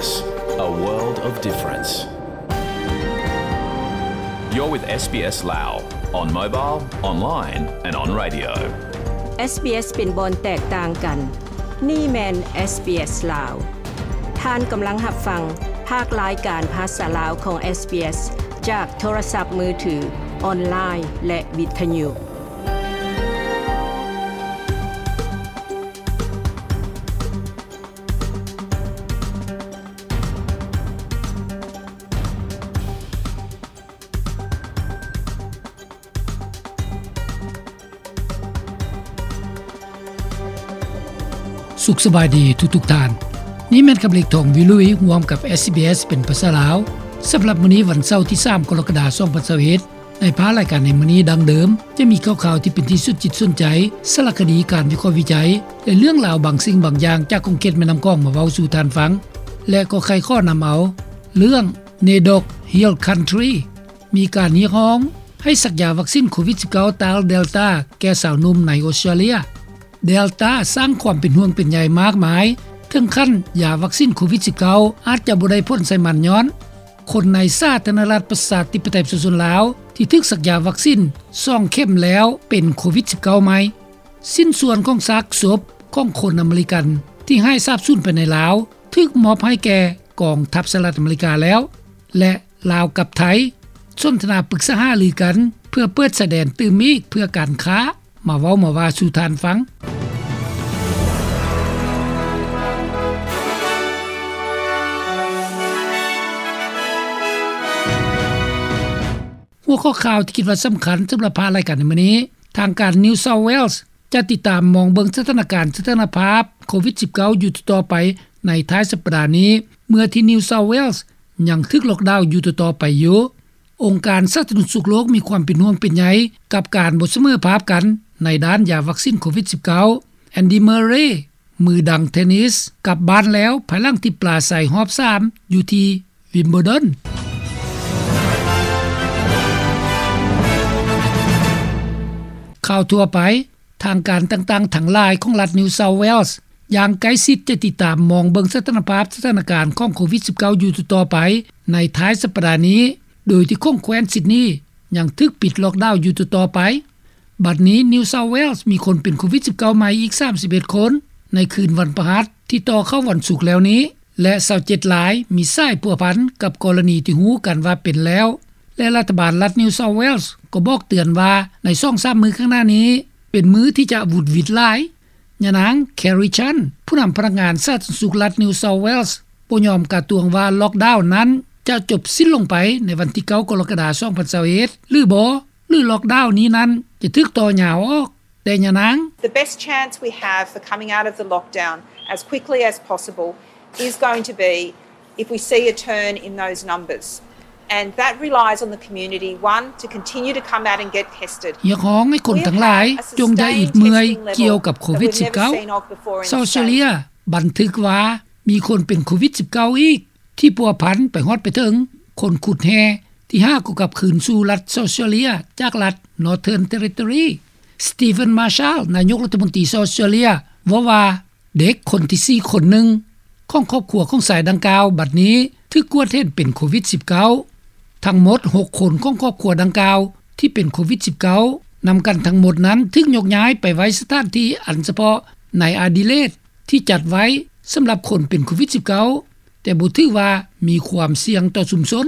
A world of difference. You're with SBS Lao on mobile, online and on radio. SBS ເປັນບ່ອນແຕກຕ່າງກັນ. ນີ້ແມ່ນ SBS ລາວ. ທ່ານກຳລັງຮັບຟັງພາກລາຍການພາສາລາວຂອງ SBS ຈາກໂທລະສັບມືຖື, ອອນລາຍ ແລະ ວິທະຍຸ. ສຸກສະບາຍດີທຸກໆທ່ານ. ນີ້ແມ່ນຄຳເລັກ ທອງວິລຸຍ ຮ່ວມກັບ SBS ເປັນພາສາລາວ. ສຳລັບມື້ນີ້ ວັນເສົາ ທີສາມ ກໍລະກະດາ ສອງພັນຊາວເອັດ ໃນພາກລາຍການໃນມື້ນີ້ ດັ່ງເດີມ ຈະມີຂ່າວໆທີ່ເປັນທີ່ສົນຈິດສົນໃຈ, ສາລະຄະດີ, ການວິເຄາະວິໄຈ ແລະ ເລື່ອງລາວບາງສິ່ງບາງຢ່າງຈາກຂົງເຂດແມ່ນ້ຳຂອງມາເວົ້າສູ່ທ່ານຟັງ ແລະ ກໍໃຄ່ຂໍນຳເອົາເລື່ອງ NAIDOC Hill Country ມີການຮຽກຮ້ອງໃຫ້ສັກຢາວັກຊິນໂຄວິດສິບເກົ້າ ຕ້ານເດລຕາ ແກ່ຊາວໜຸ່ມໃນອົດສະຕຣາເລຍ. ເດລຕາສ້າງຄວາມເປັນຫ່ວງເປັນໃຍມາກມາຍ ເຖິງຂັ້ນຢາວັກຊິນໂຄວິດສິບເກົ້າ ອາດຈະບໍ່ໄດ້ຜົນໃສ່ມັນ ຍ້ອນຄົນໃນສາທາລະນະລັດ ປະຊາທິປະໄຕ ປະຊາຊົນລາວ ທີ່ຖືກສັກຢາວັກຊິນສອງເຂັມແລ້ວ ເປັນໂຄວິດສິບເກົ້າໃໝ່. ຊິ້ນສ່ວນຂອງຊາກສົບຂອງຄົນອາເມລິກັນທີ່ຫາຍສາບສູນໄປໃນລາວ ຖືກມອບໃຫ້ແກ່ກອງທັບສະຫະລັດອາເມລິກາແລ້ວ ແລະ ລາວກັບໄທ ສົນທະນາປຶກສາຫາລືກັນ ເພື່ອເປີດຊາຍແດນຕື່ມອີກເພື່ອການຄ້າ. ມາເວົ້າມາວ່າສູ່ທ່ານຟັງ. ຫົວຂໍ້ຂ່າວທີ່ຄິດວ່າສຳຄັນສຳລັບພາກລາຍການໃນມື້ນີ້, ທາງການ New South Wales ຈະຕິດຕາມມອງເບິ່ງສະຖານະການ ສະຖານະພາບໂຄວິດສິບເກົ້າ ຢູ່ຕໍ່ໆໄປໃນທ້າຍສັບປະດານີ້ ເມື່ອທີ່ New South Wales ຍັງຖືກລ໊ອກດາວຢູ່ຕໍ່ໆໄປຢູ່. ອົງການສາທາລະນະສຸກໂລກມີຄວາມເປັນຫ່ວງເປັນໃຍກັບການບໍ່ສະເໝີພາບກັນໃນດ້ານຢາວັກຊິນໂຄວິດສິບເກົ້າ. Andy Murray ມືດັງເທນນິສ ກັບບ້ານແລ້ວ ພາຍຫຼັງທີ່ປາໄສຮອບສາມຢູ່ທີ່ Wimbledon. ຂ່າວທົ່ວໄປ. ທາງການຕ່າງໆທັງຫຼາຍຂອງລັດ New South Wales ຢ່າງໃກ້ຊິດຈະຕິດຕາມມອງເບິ່ງສະຖານະພາບສະຖານະການຂອງໂຄວິດສິບເກົ້າ ຢູ່ຕໍ່ໆໄປໃນທ້າຍສັບປະດານີ້ ໂດຍທີ່ຂົງແຄວ້ນຊິດນີຍັງຖືກປິດລ໊ອກດາວຢູ່ຕໍ່ໆໄປ. ບັດນີ້ New South Wales ມີຄົນເປັນໂຄວິດສິບເກົ້າໃໝ່ອີກສາມສິບເອັດຄົນ ໃນຄືນວັນພະຫັດທີ່ຕໍ່ເຂົ້າວັນສຸກແລ້ວນີ້ ແລະ ຊາວເຈັດລາຍມີສາຍພົວພັນກັບກໍລະນີທີ່ຮູ້ກັນວ່າເປັນແລ້ວ ແລະ ລັດຖະບານລັດ New South Wales ກໍບອກເຕືອນວ່າໃນສອງສາມມື້ຂ້າງໜ້ານີ້ ເປັນມື້ທີ່ຈະຫວຸດຫວິດຫຼາຍ. ຍານາງ Kerry Chan ຜູ້ນຳພະນັກງານສາທາລະນະສຸກລັດ New South Wales ບໍ່ຍອມກາດຕວງວ່າລ໊ອກດາວນັ້ນຈະຈົບສິ້ນລົງໄປໃນວັນທີເກົ້າ ກໍລະກະດາ ສອງພັນຊາວເອັດ ຫຼືບໍ່ ຫຼືລ໊ອກດາວນີ້ນັ້ນຈະຖືກຕໍ່ຍາວອອກ. ແຕ່ຍານາງ The best chance we have for coming out of the lockdown as quickly as possible is going to be if we see a turn in those numbers, and that relies on the community, one, to continue to come out and get tested. ຮຽກຮ້ອງໃຫ້ຄົນທັງຫຼາຍຈົ່ງຢ່າອິດເມື່ອຍກ່ຽວກັບໂຄວິດສິບເກົ້າ. ຊາວເຊເລຍບັນທຶກວ່າມີຄົນເປັນໂຄວິດສິບເກົ້າອີກ ທີ່ພົວພັນໄປຮອດໄປເຖິງຄົນຂຸດແຮ່ທີ່ຫາກໍກັບຄືນສູ່ລັດ South Australia ຈາກລັດ Northern Territory. Steven Marshall ນາຍົກລັດຖະມົນຕີ South Australia ເວົ້າວ່າ ເດັກຄົນທີສີ່ຄົນໜຶ່ງຂອງຄອບຄົວຂອງຊາຍດັ່ງກ່າວ ບັດນີ້ຖືກກວດເຫັນເປັນໂຄວິດສິບເກົ້າ. ທັງໝົດຫົກຄົນຂອງຄອບຄົວດັ່ງກ່າວທີ່ເປັນໂຄວິດສິບເກົ້າ ນຳກັນທັງໝົດນັ້ນຖືກຍົກຍ້າຍໄປໄວ້ສະຖານທີ່ອັນສະເພາະໃນອາດີເລດ ທີ່ຈັດໄວ້ສຳລັບຄົນເປັນໂຄວິດສິບເກົ້າ ແຕ່ບໍ່ຖືກວ່າມີຄວາມສ່ຽງຕໍ່ຊຸມຊົນ.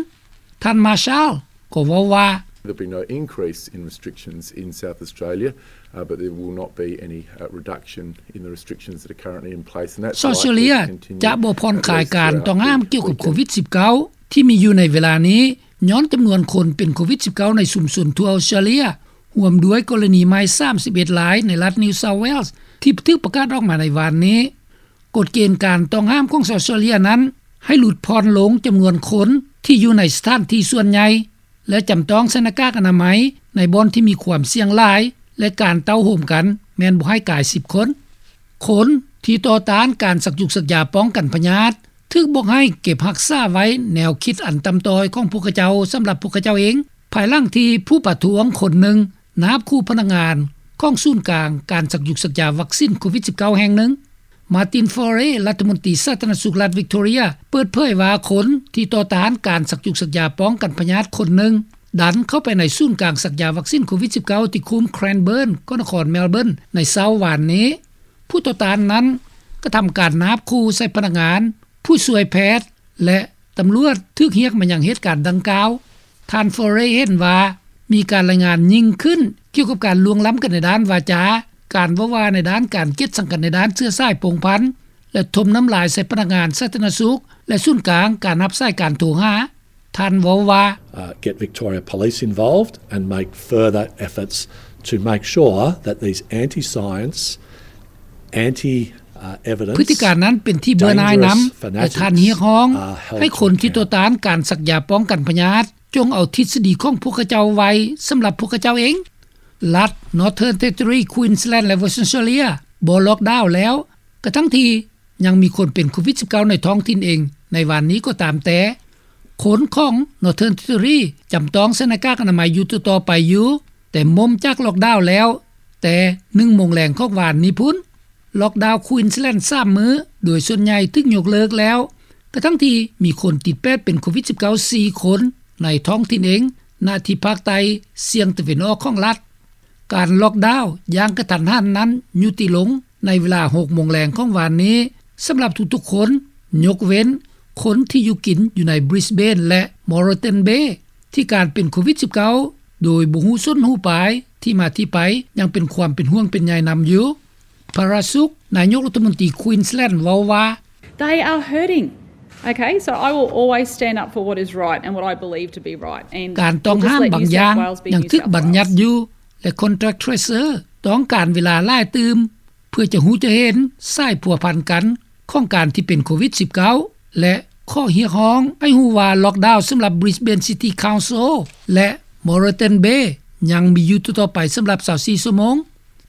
ທ່ານ Marshall ກໍເວົ້າວ່າ There'll be no increase in restrictions in South Australia, uh, but there will not be any, uh, reduction in the restrictions that are currently in place, and that's likely to continue at least throughout the weekend. ຊາວເຊເລຍຈະບໍ່ຜ່ອນຄາຍການຕ້ອງຫ້າມກ່ຽວກັບໂຄວິດສິບເກົ້າ ທີ່ມີຢູ່ໃນເວລານີ້ ຍ້ອນຈຳນວນຄົນເປັນໂຄວິດສິບເກົ້າໃນຊຸມຊົນທົ່ວອອສເຕຣເລຍ ຮ່ວມດ້ວຍກໍລະນີໃໝ່ສາມສິບເອັດລາຍໃນລັດ New South Wales ທີ່ຖືກປະກາດອອກມາໃນວານນີ້. ກົດເກນການຕ້ອງຫ້າມຂອງອອສເຕຣເລຍນັ້ນ ໃຫ້ຫຼຸດຜ່ອນລົງຈຳນວນຄົນທີ່ຢູ່ໃນສະຖານທີ່ສ່ວນໃຫຍ່ ແລະ ຈຳຕ້ອງໃສ່ໜ້າກາກອະນາໄມໃນບ່ອນທີ່ມີຄວາມສ່ຽງຫຼາຍ ແລະ ການເຕົ້າໂຮມກັນແມ່ນບໍ່ໃຫ້ກາຍສິບຄົນ. ຄົນທີ່ຕໍ່ຕ້ານການສັກຢູກສັກຢາປ້ອງກັນພະຍາດ ຖືກບອກໃຫ້ເກັບຮັກສາໄວ້ແນວຄິດອັນຕ່ຳຕ້ອຍຂອງພວກເຂົາເຈົ້າສຳລັບພວກເຂົາເຈົ້າເອງ, ພາຍຫຼັງທີ່ຜູ້ປະທ້ວງຄົນໜຶ່ງນາບຂູ່ພະນັກງານຂອງສູນກາງການສັກຢູກສັກຢາວັກຊິນໂຄວິດສິບເກົ້າແຫ່ງໜຶ່ງ. Martin Foray ລັດຖະມົນຕີສາທາລະນະສຸກລັດ Victoria ເປີດເຜີຍວ່າ ຄົນທີ່ຕໍ່ຕ້ານການສັກຈຸກສັກຢາປ້ອງກັນພະຍາດຄົນໜຶ່ງ ດັນເຂົ້າໄປໃນສູນກາງສັກຢາວັກຊີນໂຄວິດ-19 ທີ່ຄຸ້ມ Cranbourne ກໍນະຄອນ Melbourne ໃນເຊົ້າວານນີ້. ຜູ້ຕໍ່ຕ້ານນັ້ນກະທຳການນາບຂູ່ໃສ່ພະນັກງານ, ຜູ້ຊ່ວຍແພດ ແລະ ຕຳຫຼວດຖືກຮຽກມາຍັງເຫດການດັ່ງກ່າວ. ທ່ານ Foray ເຫັນວ່າມີການລາຍງານຍິ່ງຂຶ້ນກ່ຽວກັບການລ່ວງລ້ຳກັນໃນດ້ານວາຈາ, ການເວົ້າວ່າໃນດ້ານການກຽດຊັງກັນໃນດ້ານເຊື້ອສາຍພົງພັນ ແລະ ຖົມນ້ຳລາຍໃສ່ພະນັກງານສາທາລະນະສຸກ ແລະ ສູນກາງການຮັບສາຍການໂທຫາ. ທ່ານເວົ້າວ່າ Uh, get Victoria Police involved and make further efforts to make sure that these anti-science, anti, uh, evidence, ພຶດຕິການນັ້ນເປັນທີ່ເບື່ອໜ່າຍນຳ ແລະ ທ່ານຮຽກຮ້ອງໃຫ້ຄົນທີ່ຕໍ່ຕ້ານການສັກຢາປ້ອງກັນພະຍາດ ຈົ່ງເອົາທິດສະດີຂອງພວກເຂົາເຈົ້າໄວ້ສຳລັບພວກເຂົາເຈົ້າເອງ. ລັດ Northern Territory, Queensland ແລະ Western Australia ບໍ່ລ໊ອກດາວແລ້ວ ກະທັງທີ່ຍັງມີຄົນເປັນໂຄວິດ-19 ໃນທ້ອງຖິ່ນເອງໃນວານນີ້ກໍຕາມແຕ່. ຄົນຂອງ Northern Territory ຈຳຕ້ອງໃສ່ໜ້າກາກອະນາໄມຢູ່ຕໍ່ໆໄປຢູ່, ແຕ່ໝົມຈາກລ໊ອກດາວແລ້ວແຕ່ໜຶ່ງໂມງແລງຂອງວານນີ້ພຸ້ນ. ລ໊ອກດາວ Queensland ສາມມື້ ໂດຍສ່ວນໃຫຍ່ຖືກຍົກເລີກແລ້ວ ກະທັງທີ່ມີຄົນຕິດແປດເປັນໂຄວິດ-19 ສີ່ຄົນໃນທ້ອງຖິ່ນເອງ ນະທີ່ພາກໃຕ້ສ່ຽງຕາເວັນອອກຂອງລັດ. ການລ໊ອກດາວຢ່າງກະທັນຫັນນັ້ນຍຸຕິລົງໃນເວລາຫົກໂມງແລງຂອງວານນີ້ ສຳລັບທຸກໆຄົນ ຍົກເວັ້ນຄົນທີ່ຢູ່ກິນຢູ່ໃນ Brisbane ແລະ Moreton Bay ທີ່ການເປັນໂຄວິດ-19 ໂດຍບໍ່ຮູ້ຊົນຮູ້ປາຍ ທີ່ມາທີ່ໄປ ຍັງເປັນຄວາມເປັນຫ່ວງເປັນໃຍນຳຢູ່. Parasuck ນາຍົກລັດຖະມົນຕີ Queensland ເວົ້າວ່າ They are hurting. Okay, so I will always stand up for what is right and what I believe to be right. And ການຕ້ອງຫ້າມບາງຢ່າງຍັງຖືກບັນຍັດຢູ່ ແລະ Contact Tracer ຕ້ອງການເວລາຫຼາຍຕື່ມ ເພື່ອຈະຮູ້ຈະເຫັນສາຍພົວພັນກັນຂອງການທີ່ເປັນໂຄວິດ-19 ແລະ ຂໍຮຽກຮ້ອງໃຫ້ຮູ້ວ່າລ໊ອກດາວສຳລັບ Brisbane City Council ແລະ Moreton Bay ຍັງມີຢູ່ຕໍ່ໆໄປສຳລັບຊາວສີ່ຊົ່ວໂມງ.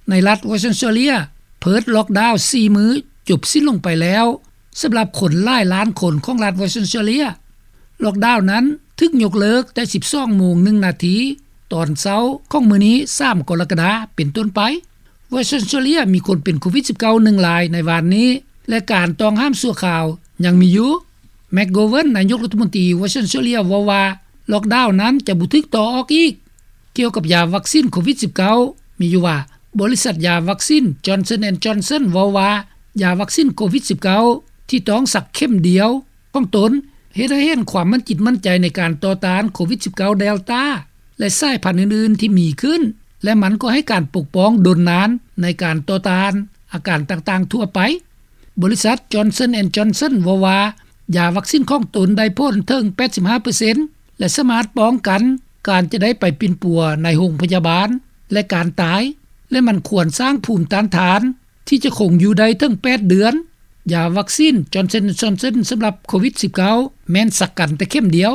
ໃນລັດ Western Australia ເພີດລ໊ອກດາວສີ່ມື້ຈົບສິ້ນລົງໄປແລ້ວ ສຳລັບຄົນຫຼາຍລ້ານຄົນຂອງລັດ Western Australia. ລ໊ອກດາວນັ້ນຖືກຍົກເລີກແຕ່ສິບສອງໂມງໜຶ່ງນາທີ ຕອນເຊົ້າຂອງມື້ນີ້ ສາມກໍລະກະດາ ເປັນຕົ້ນໄປ. Western Australia ມີຄົນເປັນໂຄວິດ-19 ໜຶ່ງລາຍໃນວານນີ້ ແລະ ການຕ້ອງຫ້າມຊົ່ວຄາວຍັງມີຢູ່. McGovern ນາຍົກລັດຖະມົນຕີ Western Australia ເວົ້າວ່າ ລ໊ອກດາວນັ້ນຈະບໍ່ຖືກຕໍ່ອອກອີກ. ກ່ຽວກັບຢາວັກຊີນໂຄວິດ-19 ມີຢູ່ວ່າ ບໍລິສັດຢາວັກຊີນ Johnson and Johnson ເວົ້າວ່າ ຢາວັກຊີນໂຄວິດ-19 ທີ່ຕ້ອງສັກເຂັມດຽວຂອງຕົນ ເຮັດໃຫ້ເຫັນຄວາມໝັ້ນຈິດໝັ້ນໃຈໃນການຕໍ່ຕ້ານໂຄວິດ-19 Delta ແລະ ສາຍພັນອື່ນໆທີ່ມີຂຶ້ນ ແລະ ມັນກໍໃຫ້ການປົກປ້ອງດົນນານໃນການຕໍ່ຕ້ານອາການຕ່າງໆທົ່ວໄປ. ບໍລິສັດ Johnson and Johnson ເວົ້າວ່າ ຢາວັກຊີນຂອງຕົນໄດ້ຜົນເຖິງແປດສິບຫ້າເປີເຊັນ ແລະ ສາມາດປ້ອງກັນການຈະໄດ້ໄປປິ່ນປົວໃນໂຮງພະຍາບານ ແລະ ການຕາຍ ແລະ ມັນຄວນສ້າງພູມຕ້ານທານທີ່ຈະຄົງຢູ່ໄດ້ເຖິງແປດເດືອນ. ຢາວັກຊີນ Johnson and Johnson ສຳລັບໂຄວິດ-19 ແມ່ນສັກກັນແຕ່ເຂັມດຽວ.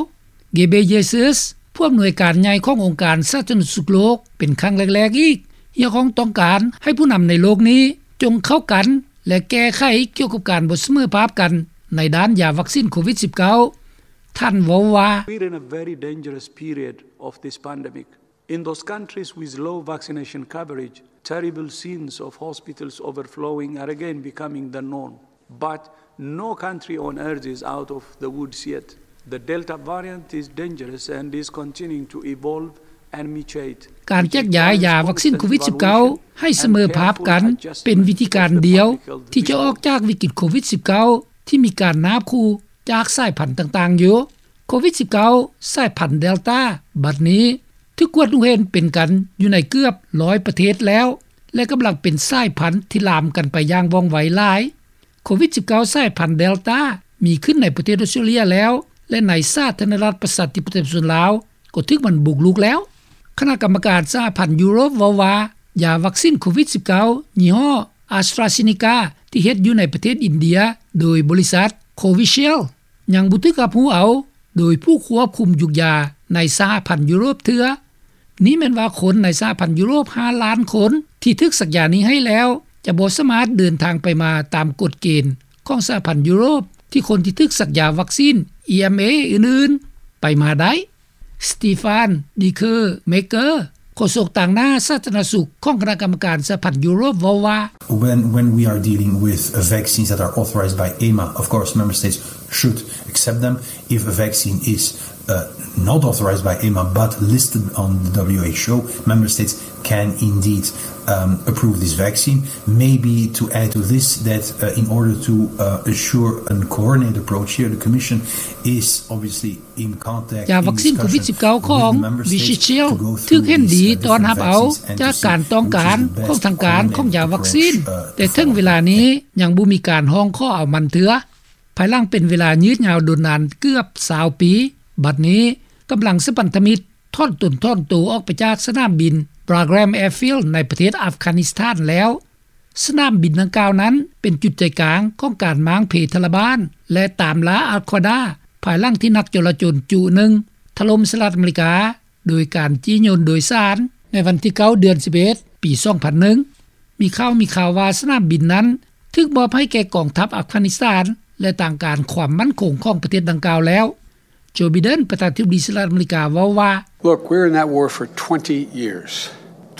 Ghebreyesus ຜູ້ອຳນວຍການໃຫຍ່ຂອງອົງການສາທາລະນະສຸກໂລກ ເປັນຄັ້ງແລກໆອີກ ຮຽກຮ້ອງຕ້ອງການໃຫ້ຜູ້ນຳໃນໂລກນີ້ຈົ່ງເຂົ້າກັນ ແລະ ແກ້ໄຂກ່ຽວກັບການບໍ່ສະເໝີພາບກັນໃນດ້ານຢາວັກຊີນໂຄວິດ-19. ທ່ານເວົ້າວ່າ We're in a very dangerous period of this pandemic. In those countries with low vaccination coverage, terrible scenes of hospitals overflowing are again becoming the norm. But no country on earth is out of the woods yet. The Delta variant is dangerous and is continuing to evolve and mutate. ການແຈກຢາຍຢາວັກຊີນໂຄວິດ-19 ໃຫ້ສະເໝີພາບກັນ ເປັນວິທີການດຽວທີ່ຈະອອກຈາກວິກິດໂຄວິດ-19 ທີ່ມີການນາບຂູ່ຈາກສາຍພັນຕ່າງໆຢູ່. ໂຄວິດ-19 ສາຍພັນ Delta ບັດນີ້ຖືກກວດຮູ້ເຫັນເປັນກັນຢູ່ໃນເກືອບຮ້ອຍປະເທດແລ້ວ ແລະ ກຳລັງເປັນສາຍພັນທີ່ລາມກັນໄປຢ່າງວ່ອງໄວຫຼາຍ. ໂຄວິດ-19 ສາຍພັນ Delta ມີຂຶ້ນໃນປະເທດອອສເຕຣເລຍແລ້ວ ແລະ ໃນສາທາລະນະລັດປະຊາທິປະໄຕປະຊາຊົນລາວກໍຖືກມັນບຸກລຸກແລ້ວ. ຄະນະກຳມະການສະຫະພັນຢູໂຣບເວົ້າວ່າ ຢາວັກຊີນໂຄວິດ-19 ຍີ່ຫໍ້ AstraZeneca ທີ່ເຮັດຢູ່ໃນປະເທດອິນເດຍໂດຍບໍລິສັດ Covishield ຍັງບໍ່ຖືກຮັບຮູ້ເອົາໂດຍຜູ້ຄວບຄຸມຢຸກຢາໃນສະຫະພັນຢູໂຣບເທື່ອ. ນີ້ແມ່ນວ່າຄົນໃນສະຫະພັນຢູໂຣບຫ້າລ້ານຄົນທີ່ຖືກສັກຢານີ້ໃຫ້ແລ້ວ ຈະບໍ່ສາມາດເດີນທາງໄປມາຕາມກົດເກນຂອງສະຫະພັນຢູໂຣບ ທີ່ຄົນທີ່ຖືກສັກຢາວັກຊີນ EMA ອື່ນໆ ໄປມາໄດ້. Stephan Dikermaeker ໂຄສົກຕາງໜ້າສາທາລະນະສຸກຂອງຄະນະກຳມະການສະຫະພັນຢູໂຣບເວົ້າວ່າ When, when we are dealing with vaccines that are authorized by EMA, of course, member states should accept them. If a vaccine is, uh, not authorized by EMA but listed on the W H O, member states can indeed, um, approve this vaccine. Maybe to add to this, that, uh, in order to, uh, assure a coordinated approach here, the Commission is obviously ຢາວັກຊິນໂຄວິດສິບເກົ້າຂອງ Vichyshealth ຖືກເຫັນດີຕ້ອນຮັບເອົາຈາກການຕ້ອງການຂອງທາງການຂອງຢາວັກຊິນ, ແຕ່ເຖິງເວລານີ້ຍັງບໍ່ມີການຮ້ອງຂໍເອົາມັນເທື່ອ. ພາຍຫຼັງເປັນເວລາຍືດຍາວດົນນານເກືອບຊາວປີ, ບັດນີ້ກຳລັງສະພັນທະມິດຖອນຕົນຖອນໂຕອອກໄປຈາກສະໜາມບິນ Bagram Airfield ໃນປະເທດອັຟການິສຖານແລ້ວ. ສະໜາມບິນດັ່ງກ່າວນັ້ນເປັນຈຸດໃຈກາງຂອງການມ້າງເພທາລະບານ ແລະ ຕາມລ່າ Al Qaeda ພາຍຫຼັງທີ່ນັກຈໍລະຈົນຈຸໜຶ່ງຖະຫຼົ່ມສະຫະລັດອາເມລິກາ ໂດຍການຈີ້ຍົນໂດຍສານໃນວັນທີເກົ້າ ເດືອນສິບເອັດ ປີສອງພັນໜຶ່ງ. ມີຂ່າວ ມີຂ່າວວ່າສະໜາມບິນນັ້ນຖືກມອບໃຫ້ແກ່ກອງທັບອັຟການິສຖານ ແລະ ທາງການຄວາມໝັ້ນຄົງຂອງປະເທດດັ່ງກ່າວແລ້ວ. Joe Biden ປະທານາທິບໍດີສະຫະລັດອາເມລິກາເວົ້າວ່າ Look, we're in that war for twenty years.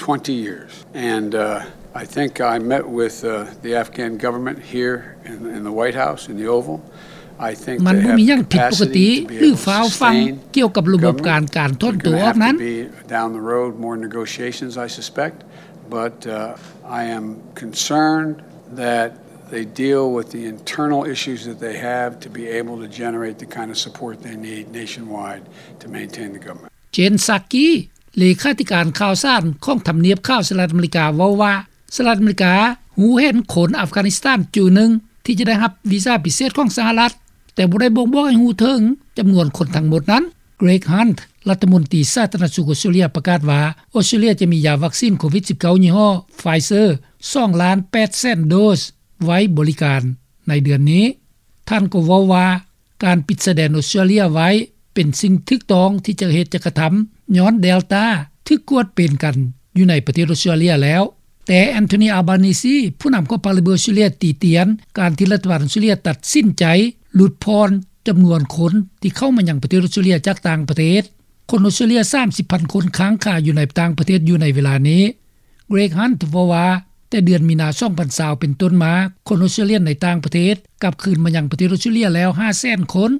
Twenty years. And, uh, I think I met with, uh, the Afghan government here in, in the White House, in the Oval. I think they have the capacity to be able to sustain the government. ມັນບໍ່ມີຫຍັງຜິດປົກກະຕິ ຫຼື ຟ້າວຟັ່ງກ່ຽວກັບລະບົບການ ການຖອນໂຕອອກນັ້ນ. There's gonna have to be, down the road, more negotiations, I suspect. But, uh, I am concerned that they deal with the internal issues that they have to be able to generate the kind of support they need nationwide to maintain the government. Jen Psaki ເລຂາທິການຂ່າວສານຂອງທຳນຽບຂາວສະຫະລັດອາເມລິກາເວົ້າວ່າ ສະຫະລັດອາເມລິກາຮູ້ເຫັນຄົນອັຟການິສຖານຈຸໜຶ່ງທີ່ຈະໄດ້ຮັບວີຊາພິເສດຂອງສະຫະລັດ, ແຕ່ບໍ່ໄດ້ບົ່ງບອກໃຫ້ຮູ້ເຖິງຈຳນວນຄົນທັງໝົດນັ້ນ. Greg Hunt ລັດຖະມົນຕີສາທາລະນະສຸກອົດສະຕຣາເລຍປະກາດວ່າ ອົດສະຕຣາເລຍຈະມີຢາວັກຊິນໂຄວິດສິບເກົ້າຍີ່ຫໍ້ Pfizer ສອງລ້ານແປດແສນໂດສໄວ້ບໍລິການໃນເດືອນນີ້. ທ່ານກໍເວົ້າວ່າ ການປິດຊາຍແດນອົດສະຕຣາເລຍໄວ້ເປັນສິ່ງຖືກຕ້ອງທີ່ຈະເຮັດ ຈະກະທຳ ຍ້ອນ Delta ຖືກກວດເປັນກັນຢູ່ໃນປະເທດອົດສະຕຣາເລຍແລ້ວ. ແຕ່ Anthony Albanese ຜູ້ນຳຂອງພັກ Labor ອົດສະຕຣາເລຍ ຕິຕຽນການທີ່ລັດຖະບານອົດສະຕຣາເລຍຕັດສິນໃຈຫຼຸດຜ່ອນຈຳນວນຄົນທີ່ເຂົ້າມາຍັງປະເທດອົດສະຕຣາເລຍຈາກຕ່າງປະເທດ. ຄົນອົດສະຕຣາເລຍ ສາມສິບພັນຄົນຄ້າງຄາຢູ່ໃນຕ່າງປະເທດຢູ່ໃນເວລານີ້. Greg Hunt ເວົ້າວ່າ ແຕ່ເດືອນມີນາ ສອງພັນຊາວ ເປັນຕົ້ນມາ ຄົນອົດສະຕຣາເລຍໃນຕ່າງປະເທດກັບຄືນມາຍັງປະເທດອົດສະຕຣາເລຍແລ້ວ ຫ້າແສນຄົນ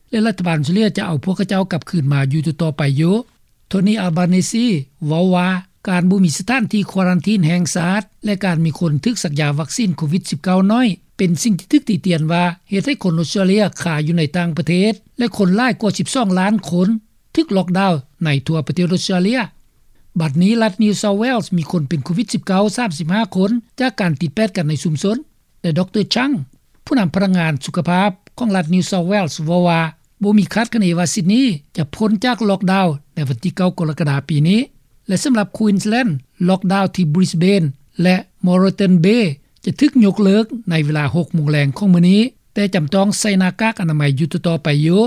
ແລະ ລັດຖະບານອົດສະຕຣາເລຍຈະເອົາພວກເຂົາເຈົ້າກັບຄືນມາຢູ່ຕໍ່ໆໄປຢູ່. Tony Albanese ເວົ້າວ່າ ການບໍ່ມີສະຖານທີ່ຄວາຣັນທີນແຫ່ງຊາດ ແລະ ການມີຄົນຖືກສັກຢາວັກຊິນໂຄວິດສິບເກົ້າໜ້ອຍ ເປັນສິ່ງທີ່ຖືກຕິຕຽນວ່າເຮັດໃຫ້ຄົນອົດສະຕຣາເລຍຄາຢູ່ໃນຕ່າງປະເທດ ແລະ ຄົນຫຼາຍກວ່າສິບສອງລ້ານຄົນ ຖືກລັອກດາວໃນທົ່ວປະເທດອົດສະຕຣາເລຍ. ບັດນີ້ລັດ New South Wales ມີຄົນເປັນໂຄວິດສິບເກົ້າ ສາມສິບຫ້າຄົນ ຈາກການຕິດແປດກັນໃນຊຸມຊົນ ແລະ ດຣ. Chang ຜູ້ນຳພະນັກງານສຸຂະພາບຂອງລັດ New South Wales ເວົ້າວ່າ ບໍ່ມີຄາດຄະເນວ່າ Sydney ຈະພົ້ນຈາກລັອກດາວໃນວັນທີເກົ້າ ກໍລະກະດາ ປີນີ້ ແລະ ສຳລັບ Queensland ລັອກດາວທີ່ Brisbane ແລະ Moreton Bay ຈະຖືກຍົກເລີກໃນເວລາຫົກໂມງແລງຂອງມື້ນີ້, ແຕ່ຈຳຕ້ອງໃສ່ໜ້າກາກອະນາໄມຢູ່ຕໍ່ໆໄປຢູ່.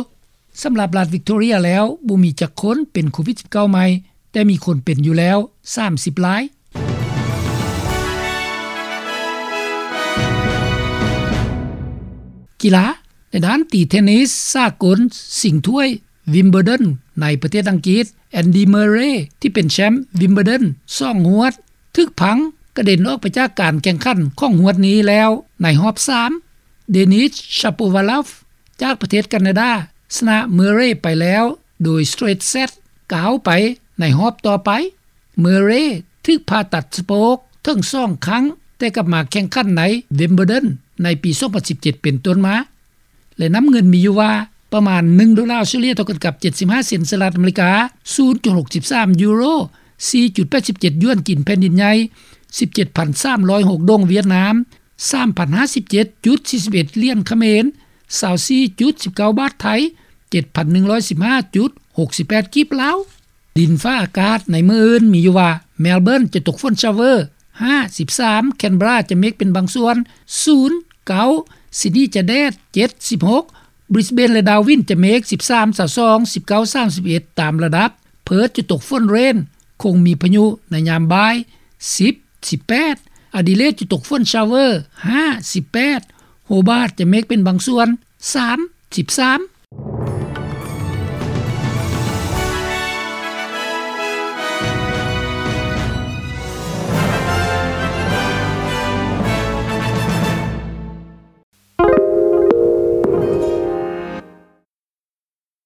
ສຳລັບລັດ Victoria ແລ້ວ ບໍ່ມີຈັກຄົນເປັນໂຄວິດສິບເກົ້າໃໝ່, ແຕ່ມີຄົນເປັນຢູ່ແລ້ວສາມສິບລາຍ. ກິລາ, ໃນດ້ານຕີເທນນິສສາກົນຊິງຖ້ວຍ Wimbledon ໃນປະເທດອັງກິດ, Andy Murray ທີ່ເປັນແຊ້ມ Wimbledon ສອງຫວດ ຖືກພັງກະເດັນອອກໄປຈາກການແຂ່ງຂັນຂອງຫວດນີ້ແລ້ວໃນຮອບສາມ. Denis Shapovalov ຈາກປະເທດການາດາ ຊະນະ Murray ໄປແລ້ວໂດຍ straight set ກ້າວໄປໃນຮອບຕໍ່ໄປ. Murray ຖືກຜ່າຕັດສະໂພກເຖິງສອງຄັ້ງ ແຕ່ກັບມາແຂ່ງຂັນໃນ Wimbledon ໃນປີສອງພັນສິບເຈັດເປັນຕົ້ນມາ. ແລະ ນ້ຳເງິນມີຢູ່ວ່າ ປະມານໜຶ່ງໂດລາອົດສະຕຣາເລຍ ເທົ່າກັນກັບເຈັດສິບຫ້າເຊັນສະຫະລັດອາເມລິກາ, ສູນຈຸດຫົກສິບສາມຢູໂຣ, ສີ່ຈຸດແປດສິບເຈັດຢວນຈີນແຜ່ນດິນໃຫຍ່, ສິບເຈັດພັນສາມຮ້ອຍຫົກດົງຫວຽດນາມ, ສາມພັນຫ້າສິບເຈັດຈຸດສີ່ສິບເອັດຫຼຽນຂະເໝນ, ຊາວສີ່ຈຸດສິບເກົ້າບາດໄທ, ເຈັດພັນໜຶ່ງຮ້ອຍສິບຫ້າຈຸດຫົກສິບແປດກີບລາວ. ດິນຟ້າອາກາດໃນມື້ອື່ນມີຢູ່ວ່າ Melbourne ຈະຕົກຝົນຊາວເວີ ຫ້າ ສິບສາມ, Canberra ຈະເມກເປັນບາງສ່ວນ ສູນ ເກົ້າ, Sydney ຈະແດດ ເຈັດ ສິບຫົກ, Brisbane ແລະ Darwin ຈະເມກ ສິບສາມ ຊາວສອງ, ສິບເກົ້າ ສາມສິບເອັດ ຕາມລະດັບ, Perth ຈະຕົກຝົນເຣນ ຄົງມີພາຍຸໃນຍາມບ່າຍ ສິບ ສິບແປດ, Adelaide ຈະຕົກຝົນຊາວເວີ ຫ້າ ສິບແປດ, Hobart ຈະເມກເປັນບາງສ່ວນ ສາມ ສິບສາມ.